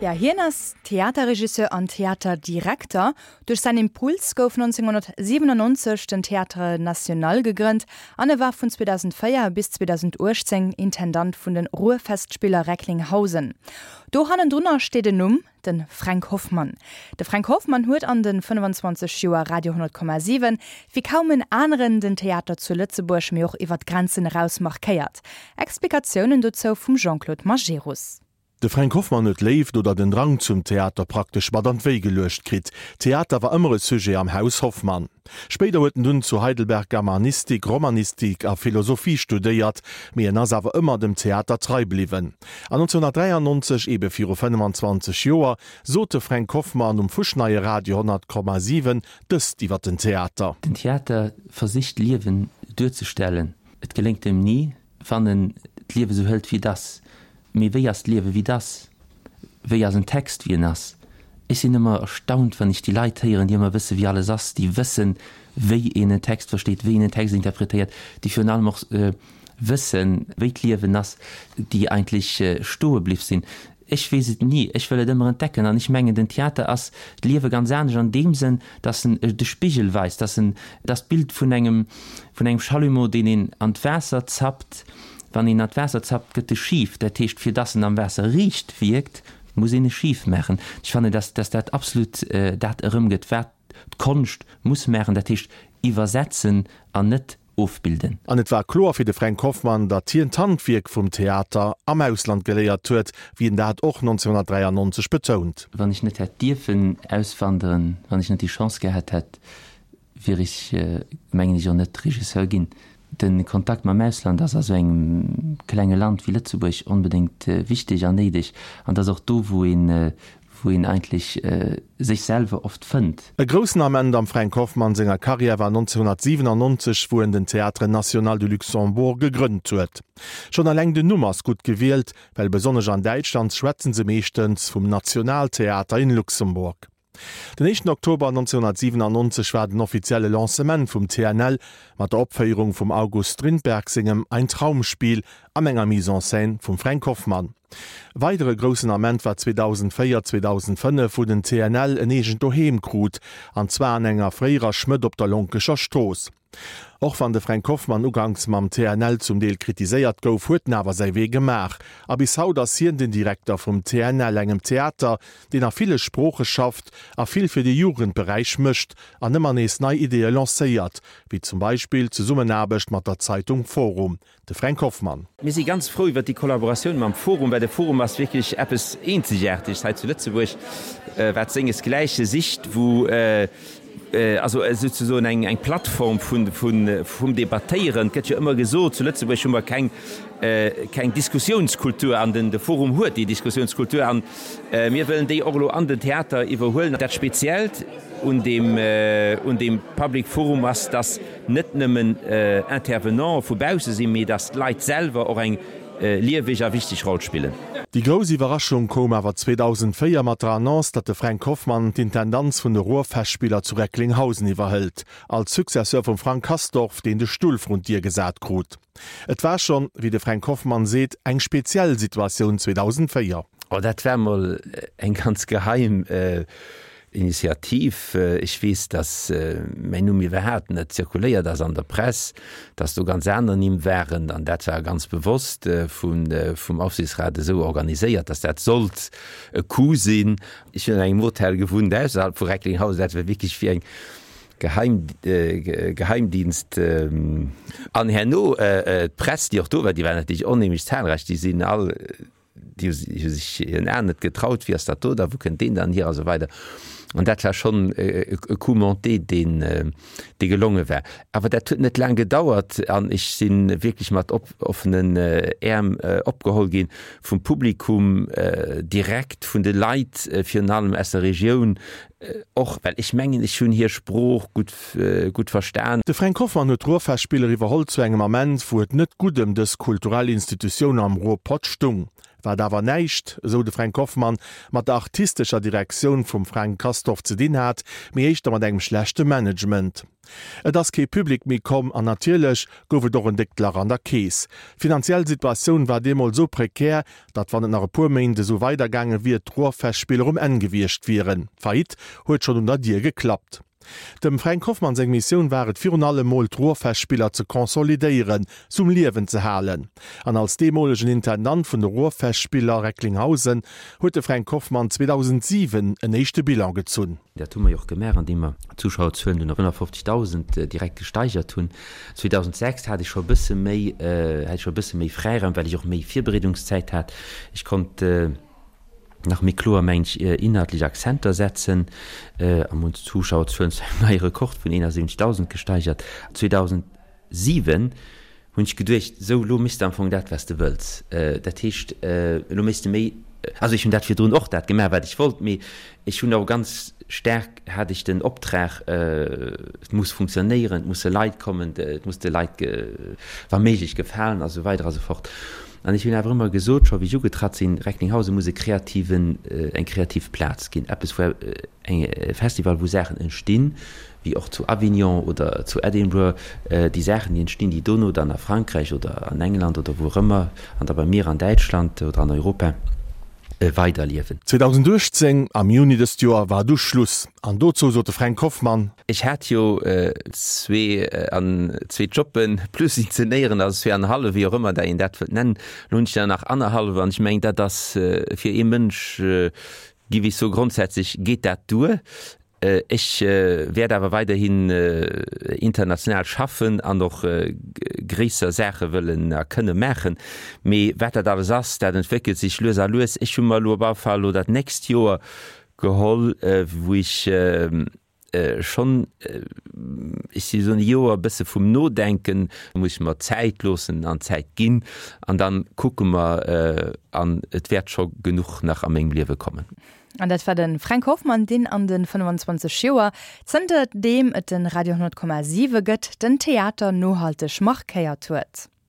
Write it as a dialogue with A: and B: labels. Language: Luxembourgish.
A: Ja, hien ass Theaterregisseur an Theaterdirekter. Duerch säin Impuls gouf 1997 den Théâtre National gegrënnt an e war vun 2004 bis 2018 Intendant vun de Ruhrfestspieler Recklinghausen. Do hannendrunner steet en Numm, De Fränk Hoffmann. De Fränk Hoffmann huet an de 25 Joer Radio 10,7 wéi kaum en aneren den Theater zu Lëtzebuerg, mee och iwwer d'Grenzen eraus markéiert. Explikatiounen dozou vum Jean-Claude Majerus.
B: De Fränk Hoffmann huet d'Léift oder den Drang zum Theater praktesch mat an d'Wéi geluecht kritt. Theater war ëmmer e Sujet am Haus Hoffmann. Spéider huet en dunn zu Heidelberg Germanistik, Romanistik a Philosophie studéiert, mee en ass awer ëmmer dem Theater trei bliwwen. An 1993, eebe viru 25 Joer, sot de Fränk Hoffmann um fuschneie Radio 100,7 dëst iwwer den Theater.
C: Den Theater versicht d'Liewen duerzestellen. Et geléngt em ni, wann en d'Liewe sou hëlt wéi et ass. Mee wéi ass d'Liewe wéi et ass? Wéi ass en Text wéi en ass? Ech sinn ëmmer erstaunt, wann ech déi Leit héieren, déi ëmmer wësse wéi alles ass, déi wëssen, wéi een en Text versteet, wéi een en Text interpretéiert, déi virun allem och wëssen, wéi d'Liewen ass, déi eigentlech stoe bliff sinn. Ech weess et ni, ech wëll et ëmmer entdecken. An ech mengen, den Theater ass d'Liewe ganz anescht an deem Sënn, dass en de Spigel weist, dass en, dass d'Bild vun engem, vun engem Chalumeau, deen een an d'Waasser zappt, wann een an d'Waasser zappt, gëtt e schif. Dat heescht, fir dass en am Waasser riicht wierkt, muss een e schif maachen. Ech fannen, dass, dass dat absolut dat erëmgëtt, wat d'Konscht muss maachen, dat heescht iwwersetzen an net ofbilden.
B: An et war kloer fir de Fränk Hoffmann, datt hien d'Handwierk vum Theater am Ausland geléiert huet, wéi en dat och 1993 betount.
C: Wann ech net hätt dierfen auswanderen, wann ech net déi Chance gehat hätt, wier ech, mengen ech, och net Regisseur ginn. De Kontakt mam Ausland ass a sou engem klenge Land wéi Lëtzebuerg onbedéngt wichteg an néideg. An et ass och do, wou een, wou een eigentlech sech selwer oft fënnt.
B: E groussen Ament am Fränk Hoffmann senger Karriär war 1997, wou en den Théâtre National du Luxembourg gegrënnt huet. Schonn eleng den Numm ass gutt gewielt, well besonnesch an Däitschland schwätzen se meeschtens vum Nationaltheater in Luxemburg. Den éischten Oktober 1997 war den offizielle Lancement vum TNL mat der Opféierung vum August Strindberg sengem Ein Traumspiel an enger Mise en scène vum Fränk Hoffmann. Weidere groussen Ament war 2004, 2005, wou den TNL en eegent Doheem krut, an zwar an enger fréierer Schmëdd op der Lonkecher Strooss. Och wann de Fränk Hoffmann uganks mam TNL zum Deel kritiséiert gouf, huet en awer säi Wee gemaach a bis haut ass hien den Direkter vum TNL, engem Theater, deen a ville Sprooche schafft a vill fir de Jugendberäich mécht an ëmmer nees nei Ideeë lancéiert, wéi zum Beispill d'Zesummenaarbecht mat der Zeitung Forum. De Fränk Hoffmann.
D: Mir si ganz frou iwwert déi Kollaboratioun mam Forum, well de Forum ass wierklech eppes Eenzegaarteges hei zu Lëtzebuerg, wat sengesgläiche sicht, wou also souzesoen eng eng Plattform vun vun vum Debattéieren. Et gëtt jo ëmmer gesot, zu Lëtzebuerg hu mer keng keng Diskussiounskultur an den de Forum huet déi Diskussiounskultur an mir wëllen déi och elo an den Theater iwwerhuelen. Dat Speziellt un deem un deem Public Forum ass, dass net nëmmen Intervenanten vu bausse sinn, mee datt d'Leit selwer och eng lieweg a wichteg Roll spillen.
B: Déi grouss Iwwerraschung koum awer 2004 mat der Annonce, datt de Fränk Hoffmann d'Intendanz vun de Ruhrfestspieler zu Recklinghausen iwwerhëlt, als Successeur vum Frank Castorf, deen de Stull vrun d'Dier gesat krut. Et war schonn, wéi de Fränk Hoffmann seet, eng speziell Situatioun 2004.
D: Oh, dat war mol eng ganz geheim Initiativ. Ech weess, datt mäin Numm iwwerhaapt net zirkuléiert ass an der Press, datt do ganz aner Nimm waren. An dat war ganz bewosst vum Aufsichtsrat esou organiséiert, datt dat sollt e Coup sinn. Ech hunn an engem Hotel gewunnt ausserhalb vu Recklinghausen. Dat war wierklech wéi eng Geheim, Geheimdienst. An herno d'Press, déi och do war, déi war natierlech onheemlech zahlreich, déi sinn all, Déi hu sech hiren Aen net getraut, Wie ass dat do da, wou kënnt deen dann hier a sou weider. An dat war schonn e Coup monté, deen, dee gelonge war. Awer dat huet net laang gedauert an ech si wierklech mat offenen Äerm opgeholl gi vum Publikum direkt, vun de Leit, virun allem aus der Regioun och, well ech mengen, ech hunn hir Sprooch gutt, gutt verstan.
B: De Fränk Hoffmann huet d'Ruhrfestspiller iwwerholl zu engem Ament, wou et net gutt ëm dës kulturell Institutioun am Ruhrpott stung. Wat awer näischt, esou de Fränk Hoffmann, mat der artistescher Direktioun vum Fränk Castorf. Castorf ze dinn hat, mee éischter mat engem schlechte Management. Et ass kee Public méi komm an natierlech gouf et och en déckt Lach an der Keess. D'finanziell Situatioun war deemools esou prekär, datt wann et nach e puer Méint esou weidergaange wier, d'Ruhrfestspiller um Enn gewiescht wieren. D'Faillite huet schonn un der Dier geklappt. Dem Fränk Hoffmann seng Missioun war et virun allem mol d'Ruhrfestspiller ze consolidéieren, se um Liewen ze halen. An als deemolegen Intendant vun de Ruhrfestspiller Recklinghausen huet de Fränk Hoffmann 2007 en éischte Bilan gezunn.
C: Dat hu mer jo och gemaach, andeem mer d'Zuschauerzuelen dunn op 150.000 direkt gesteigert hunn. 2006 hat ech scho e bësse méi, hat ech scho e bësse méi Fräiraum, well ech och méi Virbereedungszäit hat. Ech konnt nach méi kloer, mengen ech, inhaltlech Akzenter setzen a mir hunn d'Zuschauerzuelen zu engem neie Rekord vun 71.000 gesteigert. 2007 hunn ech geduecht, sou elo méchs de am Fong dat, wat s de wëlls. Dat heescht, elo méchs de méi, also ech hunn dat virdrun och dat gemaach, wat ech wollt, mee ech hunn och ganz staark, hat ech den Optrag, et muss funktionéieren, et musse Leit kommen, et muss de Leit wa méiglech gefalen a sou weider a sou fort. An ech hunn awer ëmmer gesot, scho wéi ech ugetratt sinn, Recklinghausen muss e kreativen, eng kreativ Plaz ginn, eppes wou eng e Festival, wou Saachen entstinn, wéi och zu Avignon oder zu Edinburgh, déi Saachen, déi entstinn, déi dono dann a Frankräich oder an England oder wou och ëmmer, an da bei mir an Däitschland oder an Europa weiderliewen.
B: 2018, am Juni dëst Joer, war du Schluss. An dozou sot de Fränk Hoffmann.
D: Ech hat jo zwee an zwee Jobben plus inzenéieren, also zwee an e hallef, wéi och ëmmer dat een dat wëllt nennen. Elo hunn ech der nach annerhallef an ech mengen, dat ass fir ee Mënsch, giff ech soen, grondsätzlech geet dat duer. Ech wäert awer weiderhin international schaffen an och gréisser Saache wëllen a kënne maachen. Mee wat dat alles ass, dat entwéckelt sech lues a lues. Ech hu mer elo op alle Fall elo dat nächst Joer geholl, wou ech schonn, ech si soen e Joer e bësse vum Nodenken, muss ech mer Zäit loossen an Zäit ginn an da kucke mer an et wäert scho genuch nach a mengem Liewe kommen.
A: An dat war de Fränk Hoffmann, deen an de 25 Joer, zënter deem et de Radio 10,7 gëtt, den Theater nohalteg markéiert huet.